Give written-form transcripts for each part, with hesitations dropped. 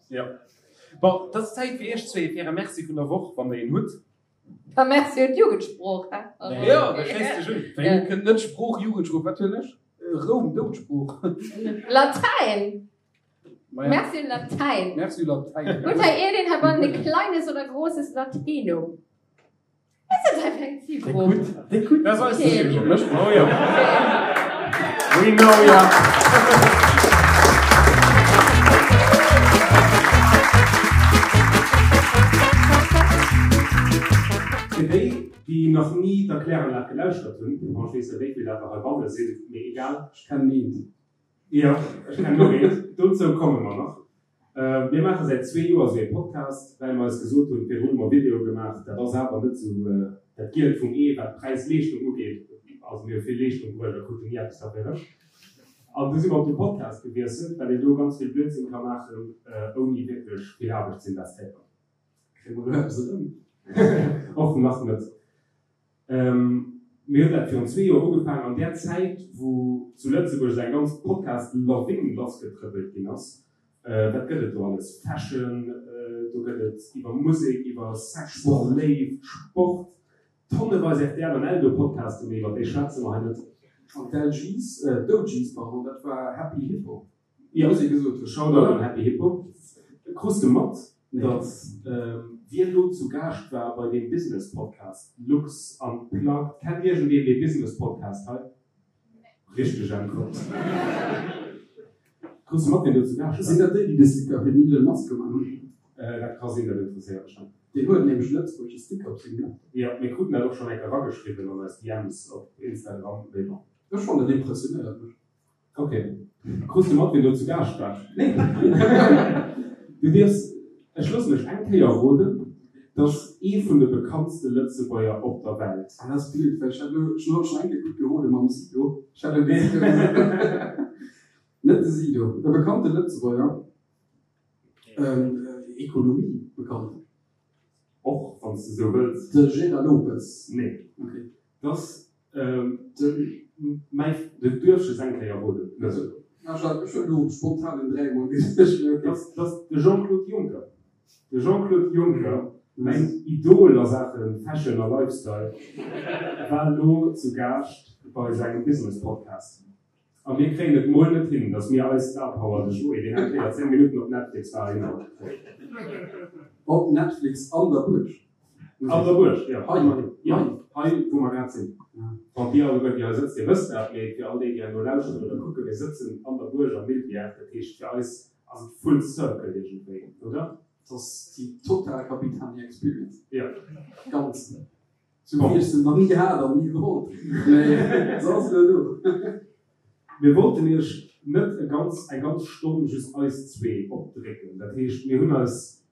Jo. Bon, et ass Zäit fir iech zwee fir äre Merci vun der Woch, wann der een hutt. Da Merci un d'Jugendsprooch, hä? Jo, da schléiss dech un. Wéi kënnt net Sprooch, Jugendsprooch, wat hunn ech? Roum, Doudsprooch. Latäin! Merci un Latäin. Merci un Latäin. Hutt hei iergendeen heibannen e kleines oder großes Latinum? Was ass dat hei fir eng Zilgrupp? Déi gutt. Dat ass eis Okay. Zilgrupp. Oh jo. We know ya. Fir déi, déi nach ni d'Erkläranlag gelauschtert hunn, bon, ech weess net, wéi vill dat der heibanne sinn, mee egal. Ech kennen eent. Jo, ech kennen och eent. Dozou komme mer nach. Mir maache säit zwee Joer esou ee Podcast, well mer eis gesot hunn, virdrun hu mer Videoe gemaach, dat ass awer net esou dat Gielt vum Ee, wat Präis-Leeschtung ugeet. Also mir hu vill Leeschtung bruecht a kruten ni eppes derfir erëm. An du si mer op de Podcast gewiesselt, well een do ganz vill Blödsinn ka maachen, ouni wierklech vill Aarbecht ze investéieren. Kréie mer elo eppes erëm? Och nach net. Mir hunn dat virun zwee Joer ugefaangen, an där Zäit, wou zu Lëtzebuerg esou eng ganz Podcast-Lawin lassgetrëppelt ginn ass. Wat gëtt et do alles? Fashion, do gëtt et iwwer Musek, iwwer Sex, Léift, Sport, tonneweis rtl an Eldo-Podcasten, mee iwwer déi schwätze mer hei net. An d'LGs, d'OGs, pardon, dat war Happy Hippo. Jo, muss ee gesot hunn. Shoutout un Happy Hippo. Krus de mat, datt wien lo zu Gaascht war bei deem Business Podcast Lux Unplugged? Kennt iergendeen dee Business Podcast hei? Richteg Äntwert. Krus de mat, wien do zu Gaascht war? Sinn dat déi, déi de Sticker fir den Elon Musk gemaach hunn? Dat ka sinn, dat interesséiert mech net. Deen huet nämlech e lëtzebuergesche Sticker op sengem Laptop. Jo, mir kruten dat och schonn eng Kéier erageschriwwen an eis DMs op Instagram, mee bon. Ech fannen, dat impressionéiert mech. Ok. Krus de mat wien do zu Gaascht war? Nee. Du dierfs, ech loossen dech eng Kéier roden, 't ass ee vun de bekanntste Lëtzebuerger op der Welt. Ah, dat ass blöd, well ech hat elo, ech hunn haut schonn eng Kéier gutt gerode mam Sido. Ech hat elo de Sido gesot. Net de Sido, e bekannte Lëtzebuerger, Ekonomie bekannt. Och wann s de sou wëlls. De Gérard Lopez? Nee. Ok. 't ass Mäi, du duerfs just eng Kéier roden. Ech hunn elo spontan en 3 mol gesot, mee ok. Dat ass de Jean-Claude Juncker. De Jean-Claude Juncker, mäin Idol a Saache Fashion a Lifestyle, war elo zu Gaascht bei sengem Business-Podcast. A mir kréien et mol net hin, datt mir eis Star Power, de Joé, deen eng Kéier 10 Minutten op Netflix war, hinhaut kréien. Op Netflix an der Buerg. An der Buerg, jo. Hei, jo, hei wou mer grad sinn. Bon, dir alleguer, déi hei sëtzt, dir wësst dat, mee fir all déi, déi herno lauschteren oder kucken, mir sëtzen an der Buerg am Mildbjerg. Dat heescht, fir eis ass et full circle iergendwéi, oder? Et ass déi total Capitani Experience. Jo. Ganz. Sou wéi ech se nach ni hat an ni wollt, mee se ass elo do. Mir wollten iech net e ganz eng ganz Stonn just eis zwee opdrécken. Dat heescht, mir hunn eis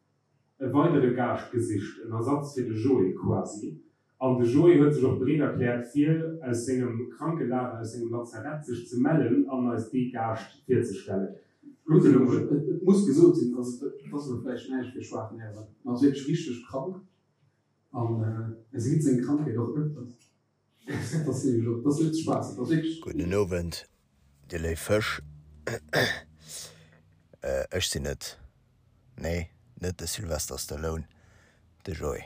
e weidere Gaascht gesicht, en Ersatz fir de Joé quasi. An de Joé huet sech och bereet erkläert, fir aus sengem Krankelager, aus sengem Lazarett sech ze mellen an eis dee Gaascht virzestellen. Kuckt elo mol. Et muss gesot sinn, also et ass elo vläicht näischt fir schwaach Nerven, ma ass wierklech richteg krank. An e seet seng Krankheet och ëfters. Dat ass nämlech och, dat ass net Spaass, dat ass wierklech. Gudden Owend, dir léif Fësch. Ech sinn et, nee, net de Sylvester Stallone, de Joé.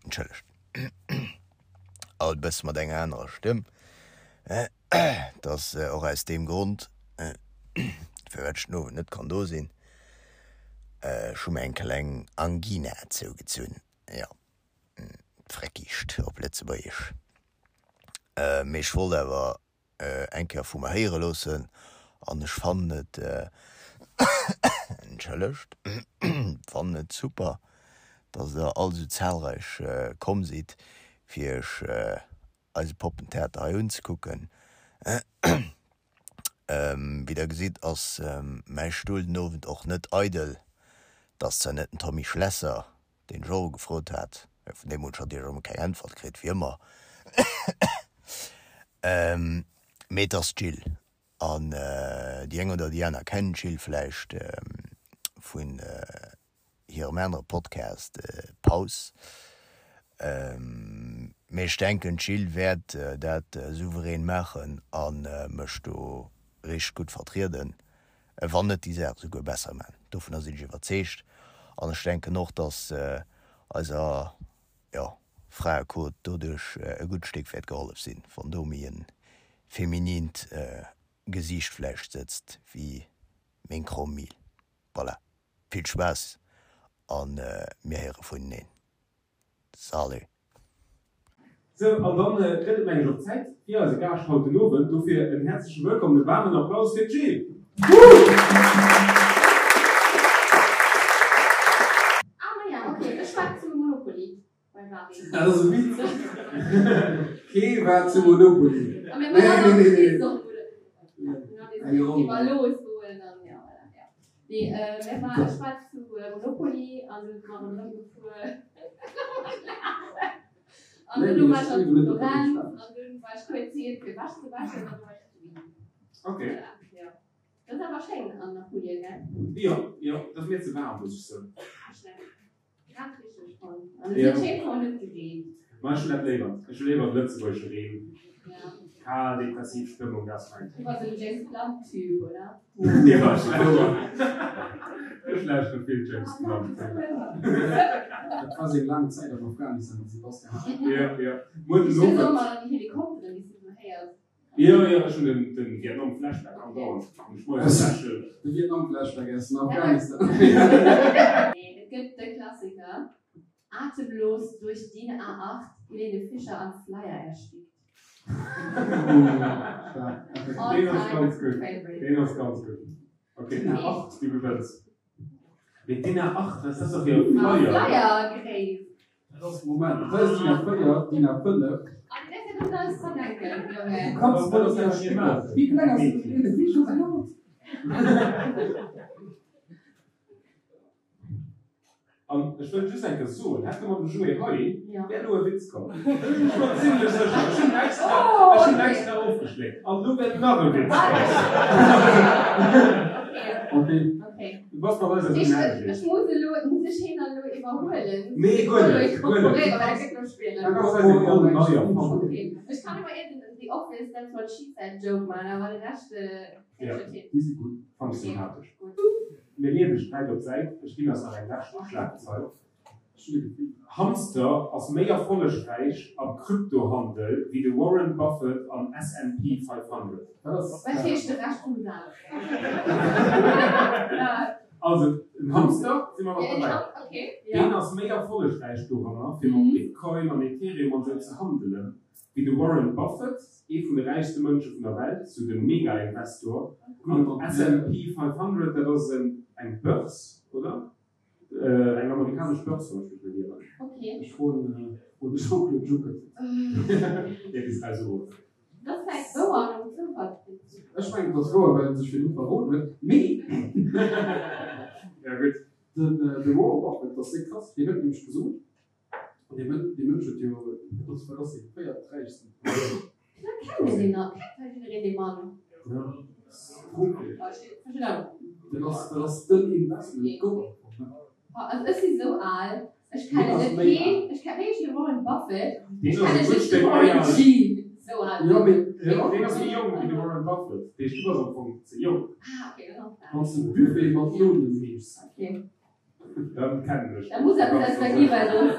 Entschëllegt. Alt e bësse mat enger anerer Stëmm. Et ass och aus deem Grond, firwat ech den Owend net kann do sinn. Ech hu mir eng kleng Angina zougezunn, jo, d'Freckischt op Lëtzebuergesch. Mee ech wollt awer eng Kéier vu mer héiere loossen an ech fannen et, entschëllegt, fannen et super, dass der all esou zahlreich komm sidd, fir iech eise Poppentheater hei unzekucken. Wéi der gesitt ass mäi Stull den Owend och net eidel. Et ass zwar net den Tommy Schlesser, deen ech och ugefrot hat, mä vun deem hunn ech natierlech och emol keng Äntwert kritt, wéi ëmmer, mee et ass d'Jill. An déi eng oder déi aner kennen d'Jill vläicht vun hirem anere Podcast Paus. Mee ech denken d'Jill wäert dat souverän maachen a mech do richteg gutt vertrieden. Wann net déi Saach esouguer besser man. Dovunner sinn ech iwwerzeegt. An ech denken och, dass eiser, jo, Fraequot doduerch e gutt Stéck wäert gehollef sinn, wann do méi e feminint Gesiicht vläicht sëtzt wéi meng kromm Mil. Voilà, vill Spaass a mir héiere vuneneen. Salut! Sou, an dann gëtt et mengen ech och Zäit fir eise Gaascht haut den Owend. Dofir en häerzleche Wëllkomm, e waarmen Applaus fir d'Jill! Ah maja, ok, ech war zu Monopoly beim Marie. Dat ass e Witz. Kee war zu Monopoly. A mir waren och bis op Iwwerlooss goen an ja, voilà, ja. Nee, mir war, ech war zu Monopoly an du si mer ronderëm gefuer. An dunn war ech an Florenz an dunn war ech kuerz heem fir Wäsch ze wäschen an du war ech zu Wien. Okay. Voilà, ja. Dat ass awer schéin an Apulien, gell? Jo, jo, dat ass mir ze waarm, muss ech soen. Grad richteg fonnt. An et huet schéin och net gereent. Ma ech hunn dat léiwer. Ech hu léiwer de lëtzebuergesche Reen. Ja. Kal, depressiv Stëmmung, dat ass mäin. Du bass en James Blunt Typ, oder? Jo, ech lauschteren. Ech lauschtere vill James Blunt. Dat war seng laang Zäit am Afghanistan, déi Sebastian hat. Jo, jo. Muer den Ech hunn Owend. och mol an déi Helikopteren, déi s du esou héiers. Jo, jo, ech hunn den den Vietnam Flashback andauernd an ech moies lächel. De Vietnam Flashback aus dem Afghanistan. Nee, et gëtt de Klassiker, Atemlos durch DIN A8, Helene Fischer am Flyer erstickt. All Deen ass time ganz gutt. favorite. Deen ass ganz gutt. Ok, DIN A8, du gewënns. Mee DIN A8, wat ass dat da fir e Flyer? Flyer gréisst. Dat ass, Moment, dat ass DIN A4, DIN A5. Du kanns net aus enger Stécker. Wéi kleng ass den Helene Fischer säin Haut? An ech wëll just eng Kéier soen, hätte mer de Joé hei, wär elo e Witz komm. Ech war zimlech sécher. Ech hunn extra, ech hunn extra ofgeschléckt. An elo wäert nach e Witz kommen. Okay. Du bass mat eis esou Ech ech muss elo, muss ech heen dann elo iwwerhuelen? Nee, guer net, guer net. net. Da kanns eis eng Roll nei erfannen. Okay. Ech kann ëmmer iergend en The Office, That's what she said Joke maachen, awer de Rescht kréien ech net hin. Déi si gutt. Fannt ech sympathesch. Gutt. Mir leeën de Sträit op d'Säit, ech ginn eis nach eng lescht Schlagzeil. Hamster ass méi erfollegräich am Kryptohandel wéi de Warren Buffett am S&P 500. Wat heescht de Rescht vum Saz? Also en Hamster, si mer nach derbäi, deen ass méi erfollegräich doranner, fir mat Bitcoin an Ethereum an esou ze handelen, wéi de Warren Buffett, ee vun de räichste Mënsche vun der Welt, sou de Mega-Investor. An S&P 500, dat ass eng Börse, oder? Eng amerikanesch Börse, wann ech mech net ieren. Okay. Ech froen de Jean-Claude Juncker. Dee bis eis erof. Dat ass vläicht wouer nom Zoufallsprinzip. Ech mengen, et ass wouer, well en sech virdru verroden huet. Mee. Ja, gutt. Den Warren Buffett, dat ass déck krass, deen huet nämlech gesot, An dee Mënsch, dee Mënsch huet jo, dat ass, wat ass dee véierträichsten vun der Welt. Firwat kennen mir deen nach? Kennt hei jiddereen dee Mann? Ja, Profi. Oh, ech verstinn awer. Dat ass, dat ass den Investment Gott am Fong, ne? Oh, also ech si sou al, ech kennen ass net méi keen, ech kennen wéi heescht de Warren Buffett, Deen ech ass kenne e gutt just de Stéck méi Warren al. G. Sou al Jo, sinn mee, ech. jo. Deen ass méi jonk wéi de Warren Buffett. Dee, du bass am Fong ze jonk. Ah, okay, dann ass dat. Wann s de Buffet mat Nonen heeschs. Okay. Dann kennen ech. Da muss eppes aus der gi well soss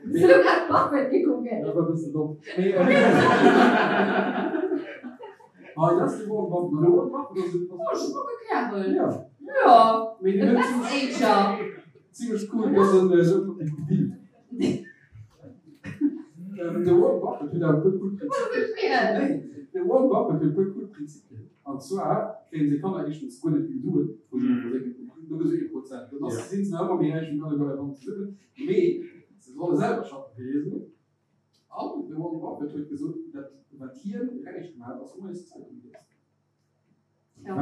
Hues du grad Buffett gekuckt? Dat war e bëssen domm. Mee hei, dat ass de Warren Buffett. An de Warren Buffett ass e. Oh, schmucke Kärel. Ja. Jo. Mee De deen huet Best Ager. zimmlech cool, dass en esou gebilt. De Warren Buffett huet awer e puer cool Prinzipien. Nee, de Warren Buffett huet e puer cool Prinzipien. An zwar kréien seng Kanner éischtens guer net vill Suen, wou se mat versénken, nëmme sou ee Prozent. Dann ass, sinn se nach ëmmer méi räich wéi alleguer hei banne zesummen. Mee se solle selwer schaffen fir hir Suen. An de Warren Buffett huet gesot, dat wat hien räich gemaach huet, ass moies d'Zeitung liesen. Well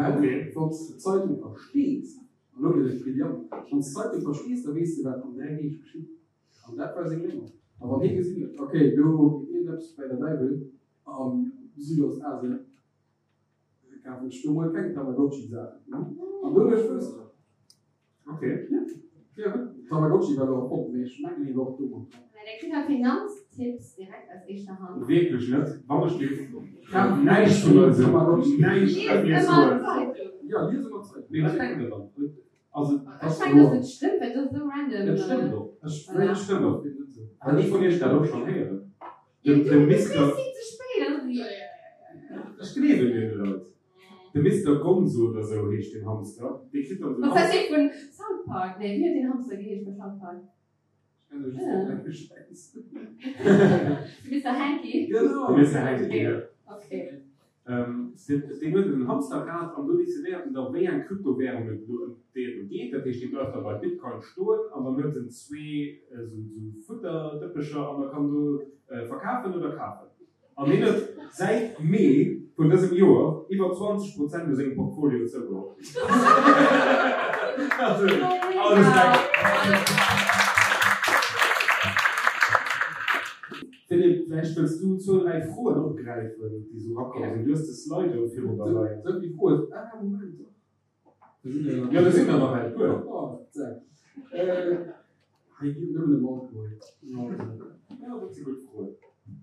wann s de d'Zeitung verstees, an elo gëtt et brillant, wann s d'Zeitung verstees, da weess de wat an 3 Deeg geschitt. An dat war seng Léngung. A wann hie gesinn huet, okay, do geet iergendeppes bäi der Däiwel am Südostasien, kafen ech do mol keng Tamagotchi-Saachen. An doduerch wousst ech et. Okay. Ja, Tamagotchi war elo erfonnt, mee ech mengen, hie war och do mat dran. Der kritt hei Finanztipps direkt aus éischter Hand. Wierklech net, wann ech géif näischt vun eisem, näischt Liest ëmmer d'Zeitung. Jo, lies ëmmer d'Zeitung. Mee wat denkt der dann? Also, Ech mengen, dass et stëmmt, well et ass esou random. Et stëmmt och. Ech Et stëmmt och. Hat ee vun iech dat och schonn héieren? Jo, Den, du, de du Mister. kriss si ze spéit an dann jo, jo, jo, jo. Ech gleewen deene Leit. De Mister Gonzo oder sou heescht deen Hamster. Dee kritt dann esou Was heißt dee vun South Park? Nee, wéi huet deen Hamster geheescht bei South Park? Ech kenne just den klenge Schäiss. De Mister Hanky? Genau. De Mister Hanky, jo. Okay. Deen huet en Hamsterrad an do decidéiert en da wéi eng Kryptowärung et elo ëm déi et elo geet. Dat heescht, dee bleift da bei Bitcoin stoen an dann huet en zwee esou Futterdëppecher an da kann do verkafen oder kafen. An hien huet säit Mee vun dësem Joer iwwer 20 Prozent u sengem Portfolio zougeholl. Also, all Respekt. Philippe, vläicht wëlls du zwou, dräi Froen opgräifen, déi sou erakomm sinn. Du hues de Slido virun der leien. Sou déi Froen, ah Moment, dach, do sinn der jo nach. Jo, do sinn der nach eng puer. Oh, zack. Hei geet et nëmmen ëm Alkohol. Jo, dat si gutt Froen.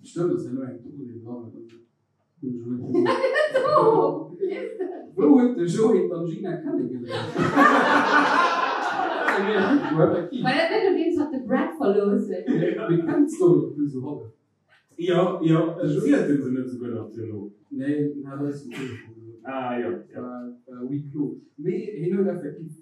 Stëmmt, ass herno eng Tournée dran oder sou. Hunn ech elo net gesinn. Wou huet de Joé d'Angina kennegeléiert? Dat ass eng mega gutt Fro, effektiv. War dat net nodeems hatt de Brad verlooss huet? Mir kennen d'Story och nëmme sou hallef. Jo, jo, zielt en se net esouguer nach duerno? Nee, en hat eis um Telefon gesot. Ah, jo, jo. War huis clos. Mee hien huet effektiv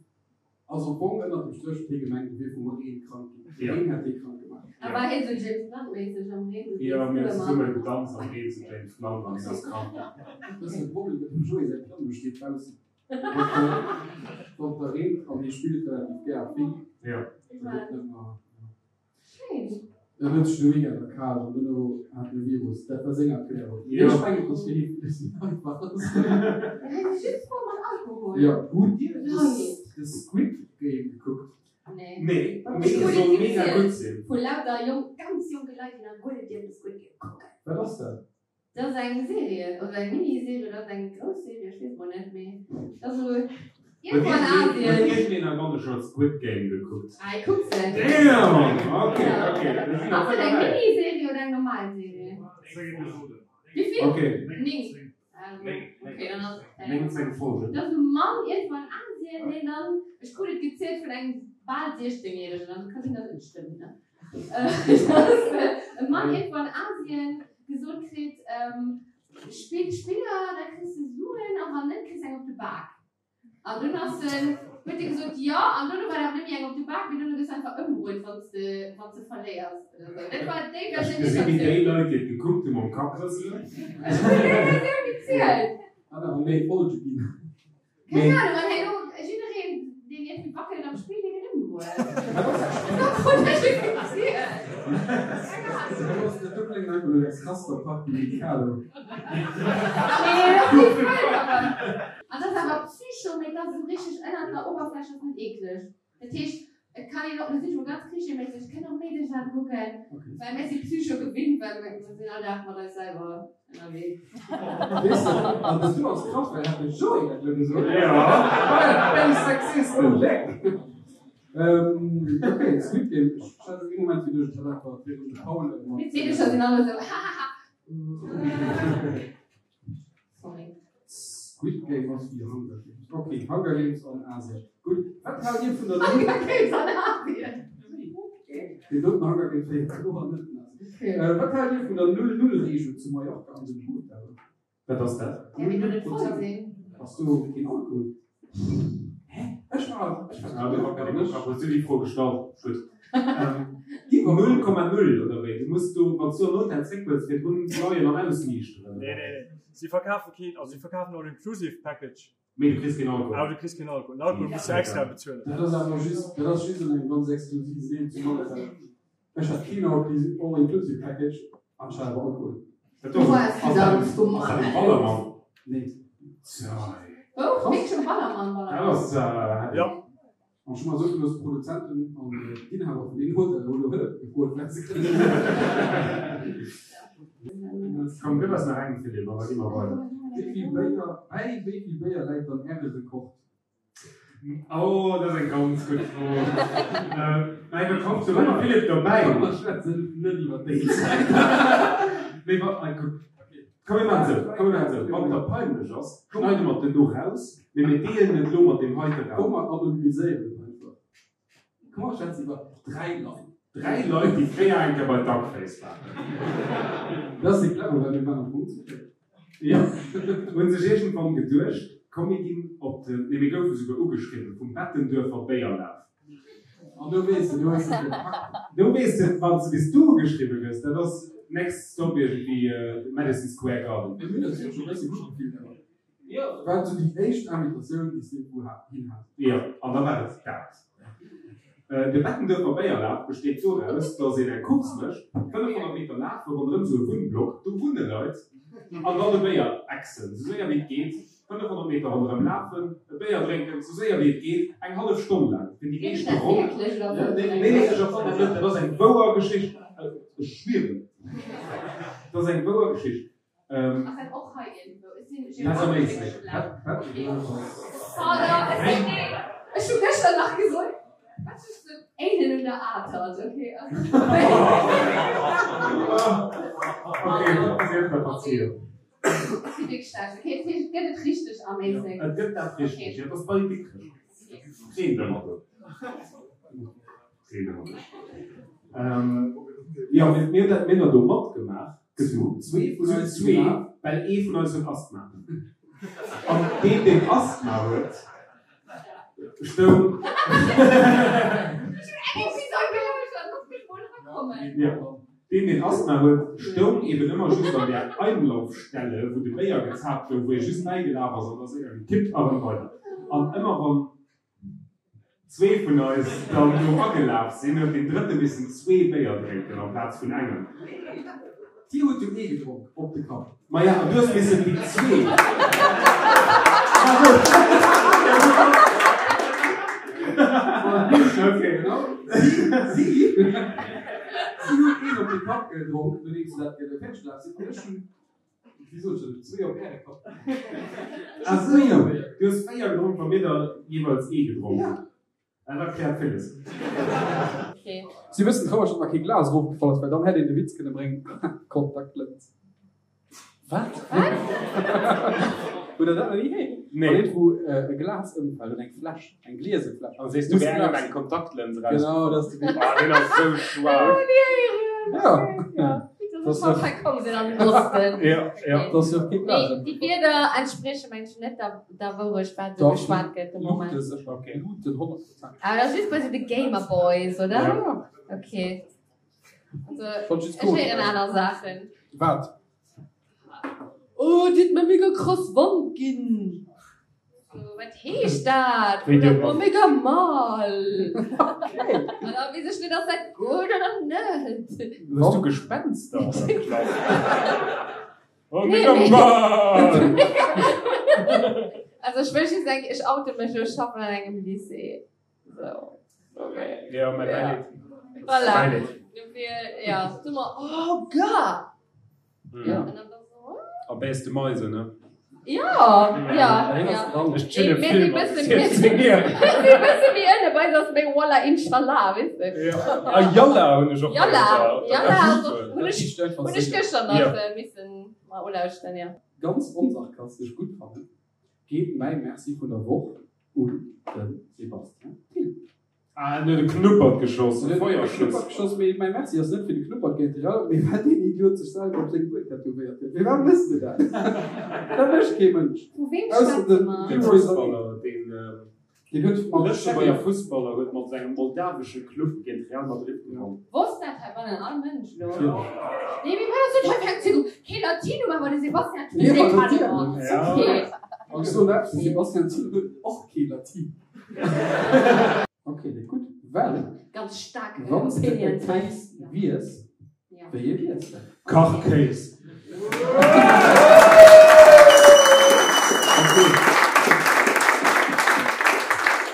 Also am Fong ënnert dem Stréch huet hie gemengt, e wier vum Reen krank ginn. De Reen hätt hie krank gemaach. A war hie sou James Blunt-méisseg am Reen sou Jo, mir hunn zesumme gedanzt am Reen zu James Blunt an hien ass krank ginn. Dat ass de Problem mat dem Joé säi Piano steet baussen. Wann et da reent an hie spillt relativ gär a vill, da gëtt net mer. Schéin. En huet sech de Weekend erkal an duerno hat en e Virus. Dat war seng Erklärung. Mee ech mengen, et ass fir hie villes méi einfach. Hei si just Froe mat Alkohol. Jo. Hutt Dir de Squid Game gekuckt? Nee. Nee, mee e soll mega gutt sinn. Vu lauter jonk, ganz jonke Leit, déi nach guer net dierfen Squid Game kucken. Wat ass dat? Dat ass eng Serie, oder eng Mini-Serie, oder ass eng grouss Serie, ech weess mol net, mee dat ass esou iergendwou an Asien. Huet iergendeen heibanne scho Squid Game gekuckt? Ah, ech kuck se. Damn! Ok, ok, da sinn Ass der et eng voll derbäi. Mini-Serie oder eng normal Serie? Wéi vill? Ok. 9. Also, ok, dann ass et eng. 19 Folgen. Dat ass e Mann iergendwou an Asien, deen dann, ech krut et gezielt vun engem bal 16 Järegen, also ka sinn, datt et net stëmmt, ne? Dass e Mann iergendwou an Asien gesot kritt, Spill Spiller, da kriss de Suen, a wann net, kriss eng op de Bak. An dunn ass en, huet e gesot, jo, an dono war et awer net méi eng op de Bak, mee dono gëss de einfach ëmbruet, wann s de, wann s de verléiers oder esou. Dat war déi Ech Versioun, déi gesi wéi ech déi Leit, déi et gekuckt hunn, mam Kapp rëselen. Ech hunn déi Versioun gezielt. Hat awer méi Folge ginn. Keng Ahnung, an herno jiddereen deen iergendwéi wackelt am Spill, dee gëtt ëmbruet. Dat krut ech just gezielt. Keng Ahnung. Dat kléngt einfach no der krasster Party Mikado. Nee, dat ass net wëll, awer. An dat ass awer Psycho, mee dat ass esou richteg ënnert der Oberfläch, ass net eekleg. Dat heescht, et kann een och, mir sinn scho ganz klischeeméisseg, et kënnen och Meedecher dat kucken, well mir si Psycho gewinnt, well mir sinn all Dag mat eis selwer ënnerwee. Weess de, an dat do ass krass, well hat de Joé dat elo gesot. Jo. Bäi Sexisten! Leck! Ok, Squid Game, ech hat ee Moment geduecht, ech hätt einfach virun de Paul mat. D'Meedecher sinn alle sou, hahaha. Sorry. Squid Game ass wéi Hunger Games. Ok, Hunger Games an Asien. Gutt, wat haalt Dir vun der Hunger Games an Asien? Deen doten Hunger Games wéi kloer net en Asien. Wat haalt Dir vun der Null-Null-Reegel zu Mallorca an den Hotellen? Wat ass dat? Däerf een do net voll sinn? Ass do keen Alkohol? Hä? Ech war, ech war. Ah, okay, hues du déi Fro gestallt? Gutt. Iwwer 0,0 oder wéi? Du muss do, wann s du an Hotel zréck wëlls, virdrun leien an ausniichteren. Nee, nee, nee. Si verkafe keen, also si verkafen All Inclusive Package. Mee du kriss keen Alkohol. Awer du kriss keen Alkohol. Den Alkohol muss du extra bezuelen. Dat ass awer just, dat ass just an engem ganz exklusiven Deel zu Malaga. Ech hat keen All Inclusive Package an ech hat awer Alkohol. Dat do ass dat um Ballermann? Nee. Wou? Wierklech um Ballermann? Dat ass heavy. Jo. An ech hu mer soe gelooss, d'Produzenten an d'Inhaber vun deenen Hotellen hu lo Hëllef gefrot, well se kënnen. Komm, gëff eis nach eng, Philippe, an da gi mer weider. Wéi vill Béier, bäi wéi vill Béier läit dann Äre Rekord? Oh, dat ass eng ganz gutt Fro. Mä iwwer kommt do ëmmer Philippe dobäi. Komm mer schwätzen net iwwer déi Zäit. Mee wa, kuck, komm mir maachen esou, komm mir maachen esou, wann et der peinlech ass, schneide mer et duerno raus, mee mir deelen et elo mat deem heite Komm Raum. mer anonymiséieren et einfach. Komm mer schwätzen iwwer 3 Leit. 3 Leit, déi fréier eng Kéier bei Duckface waren. Dat ass déi clever, well mir waren am Fong zu véiert. Jo, hunn sech iergendwann geduecht, komm mir ginn op den, nee mir goufe souguer ugeschriwwen vum Bettenduerfer Béierlaf. An do weess de, do hues de et gepackt. Do weess de, wann s de bis du ugeschriwwe gëss, dat ass next stop iergendwéi Madison Square Garden. Mir hunn eis jo scho e bësse gutt gefillt awer. Jo. War sou déi éischt Invitatioun, déi s de wou hin has. Jo, an da war et dat. De Bettenduerfer Béierlaf besteet doraus, datt een eng Course mécht, 500 Meter lafe ronderëm sou e Wunnblock, do wunne Leit, an dann e Béier exen, sou séier wéi et geet, 500 Meter ronderëm lafen, e Béier drénken, sou séier wéi et geet, eng hallef Stonn laang, fir déi meeschte Ronn. Nee, nee, ech erfannen net, dat ass eng wouer Geschicht, ech schwieren, dat ass eng wouer Geschicht. Ass dat och hei iergendwou? Ech sinn Dat ass am geographesch Éislek. schlecht. Okay. Pardon, ech sinn, nee, ech hu gëschter nach gesot, wat ass den Éinen un der Atert? Okay. Okay, sief mer verziehen. Ech si wierklech schlecht. Okay, dat heescht, et gëtt et richteg am Éislek. Et gëtt dat richteg, jo, dat ass bei Dikrech. Reen ëmmer do. Jo, mir hunn dat do matgemaach. Zu zwee vun eis zwee, well ee vun eis huet Asthma. An deen, deen Asthma huet, stoung. Deen, deen Asthma huet, stoung eben ëmmer just an där Einlaufstelle, wou de Béier gezaapt gouf, wou ee just bäigelaf ass an da séier gekippt a rëm weider. An ëmmer wann. Zwee vun eis dann do agelaf sinn, huet deen drëtte missen zwee Béier drénken amplaz vun engem. Dir hutt jo ee gedronk op de Kapp. Maja, an du hues missen déi zwee. Okay. Si, si hunn een op de Kapp gedronk, nodeems se dat fäerdeg gelaf sinn, an ech hunn Wéi sot ech dat? Zwee op Äre Kapp. Ah sou, du hues 4 gedronk, wa mir der jeeweils ee gedronk hunn. Dat erkläert villes. Si wëssen traureg, datt mer kee Glas erofgefall ass, well dann hätt een de Witz kënne bréngen, Kontaktlëns. Wat? Hutt der dat nach ni héieren? Nee. Wann eent wou e Glas ëmfält oder eng Fläsch, eng gliese Fläsch. An sees du wär engem eng Kontaktlëns eraus. Genau, dat ass de Witz. Ah, deen ass sou schwaach. Ja. Ja. Ja, ja. Dat ass jo kee Glas. Déi Wierder entsprieche mengen ech net der, der Wourecht, wat esou geschwat gëtt de Moment. Luute sécher. Okay. Luuten 100 Prozent. Awer dat ass just bei sou de Gamer Boys, oder? Ja. Okay. Also, Fand just ech héieren aner Saachen. Wat? Oh, dir hutt mer mega krass Wand ginn. So, wat heescht dat? Wéi dir Oder, oh, mega mal. Okay. An da weess ech net, ass dat gutt oder net? Hues du Gespenster an der Klass? Oh, Nee, mega nee. mal! Also ech wëll just eng, ech oute mech, ech schaffen an engem Lycée. So. Okay. Ja, mä Ja. mäin Voilà. Mäin Dofir, ja, du mer, oh Gott! Ja. An dann war so, A bäs de Meise, ne? Ja, ja, ja. Ech chille Mir vill si mat bëssen, 14 Joer. mir si bësse méi ënne, bei eis ass méi Wallah Inshallah, weess de. Ja. A Yalla hunn ech och Yalla, héiert. Yalla, Dat also, ass hunn ech, hunn ech gëschter Ja. nach missen mal ulauschteren, ja. Ganz onsarkastesch gutt fannen, geet mäi Merci vun der Woch un de Sébastien Thill. Ah, en huet e Knuppert geschoss, e Feuerschuss. Knuppert geschoss, mee mäi Merci ass net fir de Knuppert géint de Real, mee well deen Idiot sech selwer op seng Uer tätowéiert huet. Firwat méchs de dat? Dat mécht kee Mënsch. Vu weem Ausser schwätze de mer? De Leroy Sané. Fussballer, deen Deen huet mat Lëtzebuerger Fussballer huet mat sengem moldawesche Club géint Real Madrid gewonnen. Wosst dat heibannen all Mënsch lo? Natierlech. Nee, mee wat ass dat hei fir eng Zündung? Kee Latinum, awer de Sebastian Thill, Nee, dee ma kann natierlech. och. Ja. Okay. An ech soen eppes, de Sebastian Thill huet och kee Latin. Ok, dat gutt, well Ganz staark wann s de e Opinions. Kéis wiers, wéi ee wiers de? Kachkéis. Ok.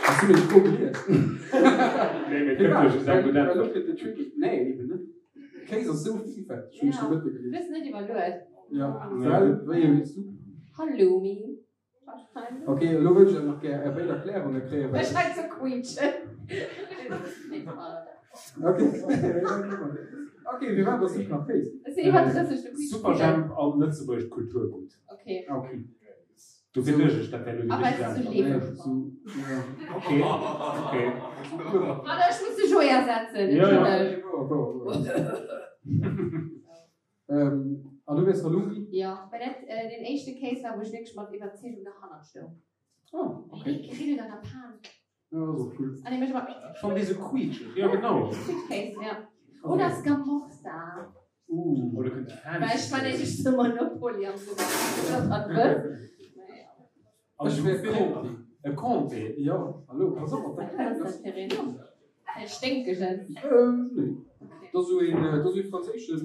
Has du meng Fro gelies? Nee, mee kënnt jo just eng gutt Well Äntwert. lo gëtt et tricky. Nee, eben net. Kéis ass sou villfälteg, hunn ech de Mëtte Du gelies. hues net iwwerluet. Ja, well wéi ee wiers du? Halloumi. Wahrscheinlech. Ok, elo wëll ech awer nach gär är béid Erklärunge kréien, well. Ech hei ze quietschen. Ok, ok, firwat ass net nach Kéis? Ech sinn iwwer 30, du quietsch. Superjhemp an lëtzebuergescht Kulturgutt. Ok. Ok. Dofir duecht ech, dat wär elo déi A well richteg se sou Äntwert. leeft. Ok, ok. Warte, ech muss de Joé ersetzen, Ja, ja. entschëlleg. An du wiers Halloumi? Jo, well dat deen éischte Kéis war, wou ech wierklech mat Iwwerzeegung derhannert stoung. Oh, ok. Wéi dee grillt an der Pan. Ja, dat ass och cool. An dee mécht ëmmer. Schonn dee sou quietscheg, jo genau. Quietschkéis, ja. Oder Scamorza. Uh. Oder kënnt déi Well ech fancy. fanéisch de Monopoly am Supermarkt, dat wëss. Naja. Also Ech wär Philippe, Comté. E Comté? Jo, hallo, pass op mat Wat ass dat fir een? E sténkegen? Nee. Dat ass esou een, dat ass esou ee franséischen,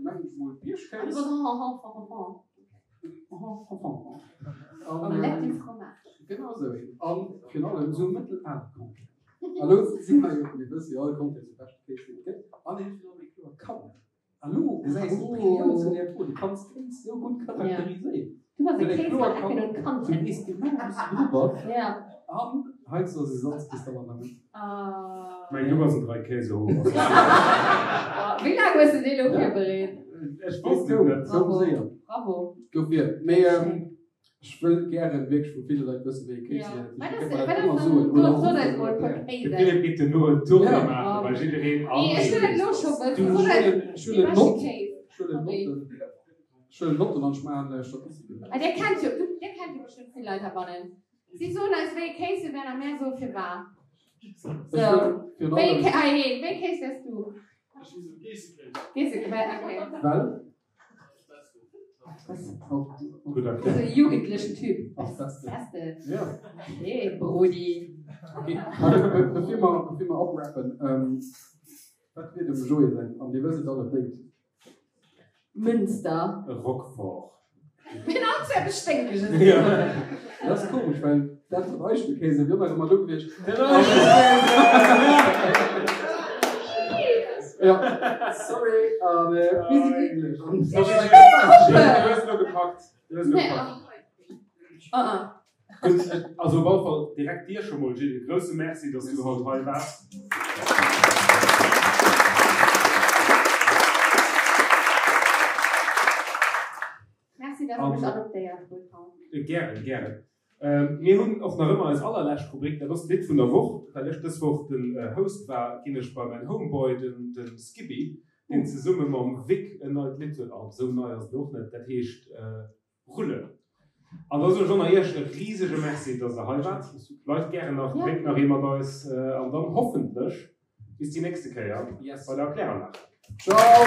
mengen ech mol, Biergkéis. Omelette du fromage. Genau esou een. A virun allem esou e mëttelale Comté. A lo si mer jo, mir wësse jo all, Comté ass de beschte Kéis, deen et gëtt. An en huet virun allem eng kloer Kanne. A lo gesäis de d'Brillanz vun där Fro, du kanns Kéis sou gutt charakteriséieren. Du bass e Well eng Kéis kloer mat Ecken Kant, und du Kanten. weess genau wou s du dru bass. Ja. An heiansdo ass e Salzkristall an der Mëtt. Ah. Mäin du bass en Dreikäsehoer. Wéi laang hues de dee lo virbereet? Ech wosst et net. Gouf séier. Bravo. Dofir. Mee ech wëll gären wierklech vu ville Leit wëssen, wéi ee Kéis Ja. léiert. Wat Dofir ass, kënnt mer wat dat ass ëmmer dann, soen. Oder sot ruffen eis mol oder e puer erklären. De Kéisen. Philippe geet duerno en Tournée Ja. maachen bei jiddereen an Nee, ech wëll dat lo scho wëssen. Du, Sot ech eis huelen, ech dee huelen beschte Nott. Kéis. Ech huelen Sorry. Notten. Ech huelen Notten an ech maachen Statistiken. Ah, Dir kennt jo, du, dir kennt jo bestëmmt vill Leit heibannen. Si soen eis, wéi ee Kéis se wären a mär soe firwat. Ech So, wëll virun wéi ee allem. Ké, ah, hee, wéi ee Kéis wäers du? Ech si sou Geessekéis. Geessekéis, okay. Well? Gutt So erkläert. e jugendlechen Typ. Ass Beste. Beste. Ja. Okay, Brudi. Okay, also, bevir mer, bevir mer oprappen, ähm, wat wier dem Joé säin, an Dir wësst et allebéid. Münster. E Roquefort. Mir hunn all zu eppes Sténkeges. Ja. Dat ass komesch, well dat mat Eichelkäse wier nach ëmmer do gewiescht. Den Eichelkäse! Ja, sorry, an mir si glécklech. Du hues elo gepackt. Du hues elo gepackt. Ah, ah. Gutt, also op alle Fall direkt dir scho mol, Gilles, e grousse Merci, dass du haut hei waars. Merci, dass der mech adoptéiert hutt haut. Gären, gären. Mir hunn och nach ëmmer eis allerlescht Rubrik, dat ass d'Lidd vun der Woch. Well ech dës Woch den Host war, ginn ech bei mäin Homeboy, de Skippy, deen zesumme mam Vic en neit Lidd huet. Oh, esou nei ass et och net, dat heescht Rullen. An da soen ech och nach Iech e risege Merci, dass der hei waart. Bleift gären nach, drénkt nach ee mat eis an dann hoffentlech Bis déi nächste Kéier bei der Kläranlag. Ciao!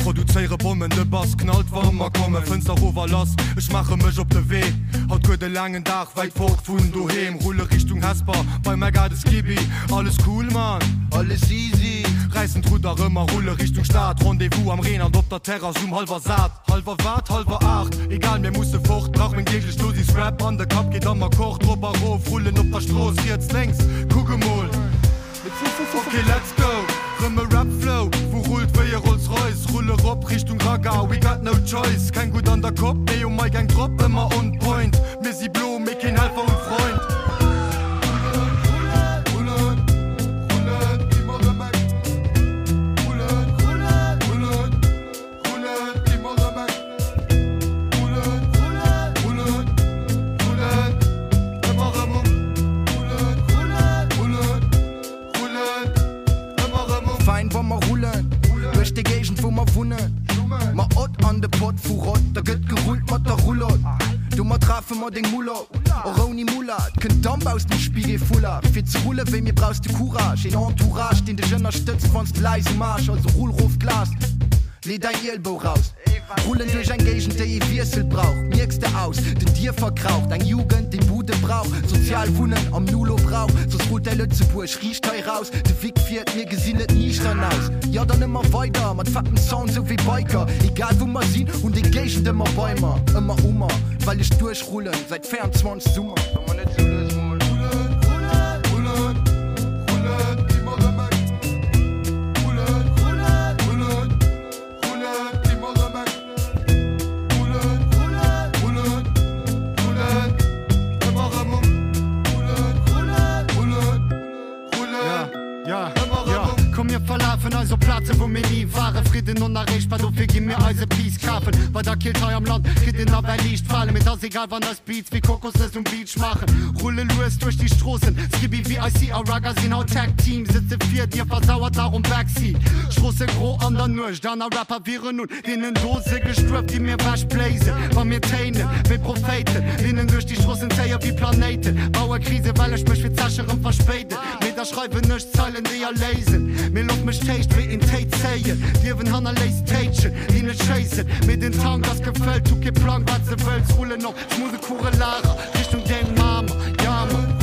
Produzéiere Bommen, de Bass knallt wa mer kommen. Fënster rof a lass, ech maache mech op de Wee. Haut gëtt e laangen Dag, wäit fort vun doheem. Rulle Richtung Hesper, bei mäi Gade Skibi. Alles cool Mann, alles easy. Räissen d'Rudder rëm a rulle Richtung Stad. Rendez-vous am Reen an op der Terrass um hallwer sat. Halwer wat? Halwer 8? Egal, mir musse fort, brauch meng deeglech Dosis Rap an de Kapp geet am Akkord rop a rof, rullen op der Strooss, riets, lénks, kuck emol, ok let's go, rëm e Rap Flow, wou rullt wéi e Rolls Royce, rulle rop Richtung Ragga, we got no choice, keng gutt an der Kopp, mee um Mic eng drop, ëmmer on point, mir si blo, mee keen Helfer und Freund. Rullen, rullen, rullen, ëmmer rëm eng, rullen, rullen, rullen. Rullen, ëmmer rëm eng. Rullen, rullen, rullen, rullen, ëmmer rëm um. Rullen, rullen, rullen, rullen, ëmmer rëm um. Fein wa mer rullen duerch déi Géigend wou mer wunnen. Ma ott an de Pott vu Rott, da gëtt gerullt mat der Rulott. Domat rafe mer deng Mull op, och ouni Mulla. Et kënnt Damp aus dem Spigel-Foulard. Fir ze rulle wéi mir brauchs de Courage, een Entourage deen dech ënnerstëtzt wanns de läis um Aarsch. Also rull rof d'Glas. Lee däin Ielbou raus. Rullen duerch eng Géigend déi ee Wiessel brauch. Mierks de aus den Dierfer kraucht eng Jugend déi Bude brauch. Sozial Wunnen am Nulo brauch. Soss rullt däi Lëtzebuerg riicht hei raus. De Vic fiert, mir gesinn et niichtern aus. Jo dann ëmmer weider mat fettem Sound sou wéi Biker. Egal wou mer sinn, hunn déi Géigend ëmmer bei mer. Ëmmer u mer, well ech duerchrullen säit 24 Summer. Treffen eis op Plaze wou mir ni waren. Fridden onerreechbar, dofir gi mir eise Peace kafen. Bei der Keelt hei am Land kritt een nawell liicht Falen. Mee 't ass egal wann eis Beats wéi Kokosnëss um Beach maachen. Rulle lues duerch déi Stroossen, Skibby, VIC a Ragga sinn haut Tag Team. Sëtze vir dir, versauert nach um Backseat. Stroosse gro an der Nuecht, aner Rapper wieren un deenen Dose gestuerf, déi mir wech bléisen. Wa mir téinen wéi Prophéiten, Linnen duerch déi Stroossen zéie wéi Planéiten. Baue Krise well ech mech fir d'Zeche rëm verspéiden. Mee da schreiwen ech Zeilen déi erléisen. Mee looss mech d'Héicht wéi een Téi zéien. D'Liewen hannerléisst Téitschen déi net schéissen. Mee den Tank ass gefëllt, hu kee Plang wat se wëlls. Rullen op smoothe Kugelager Richtung deng Mamer, ja man.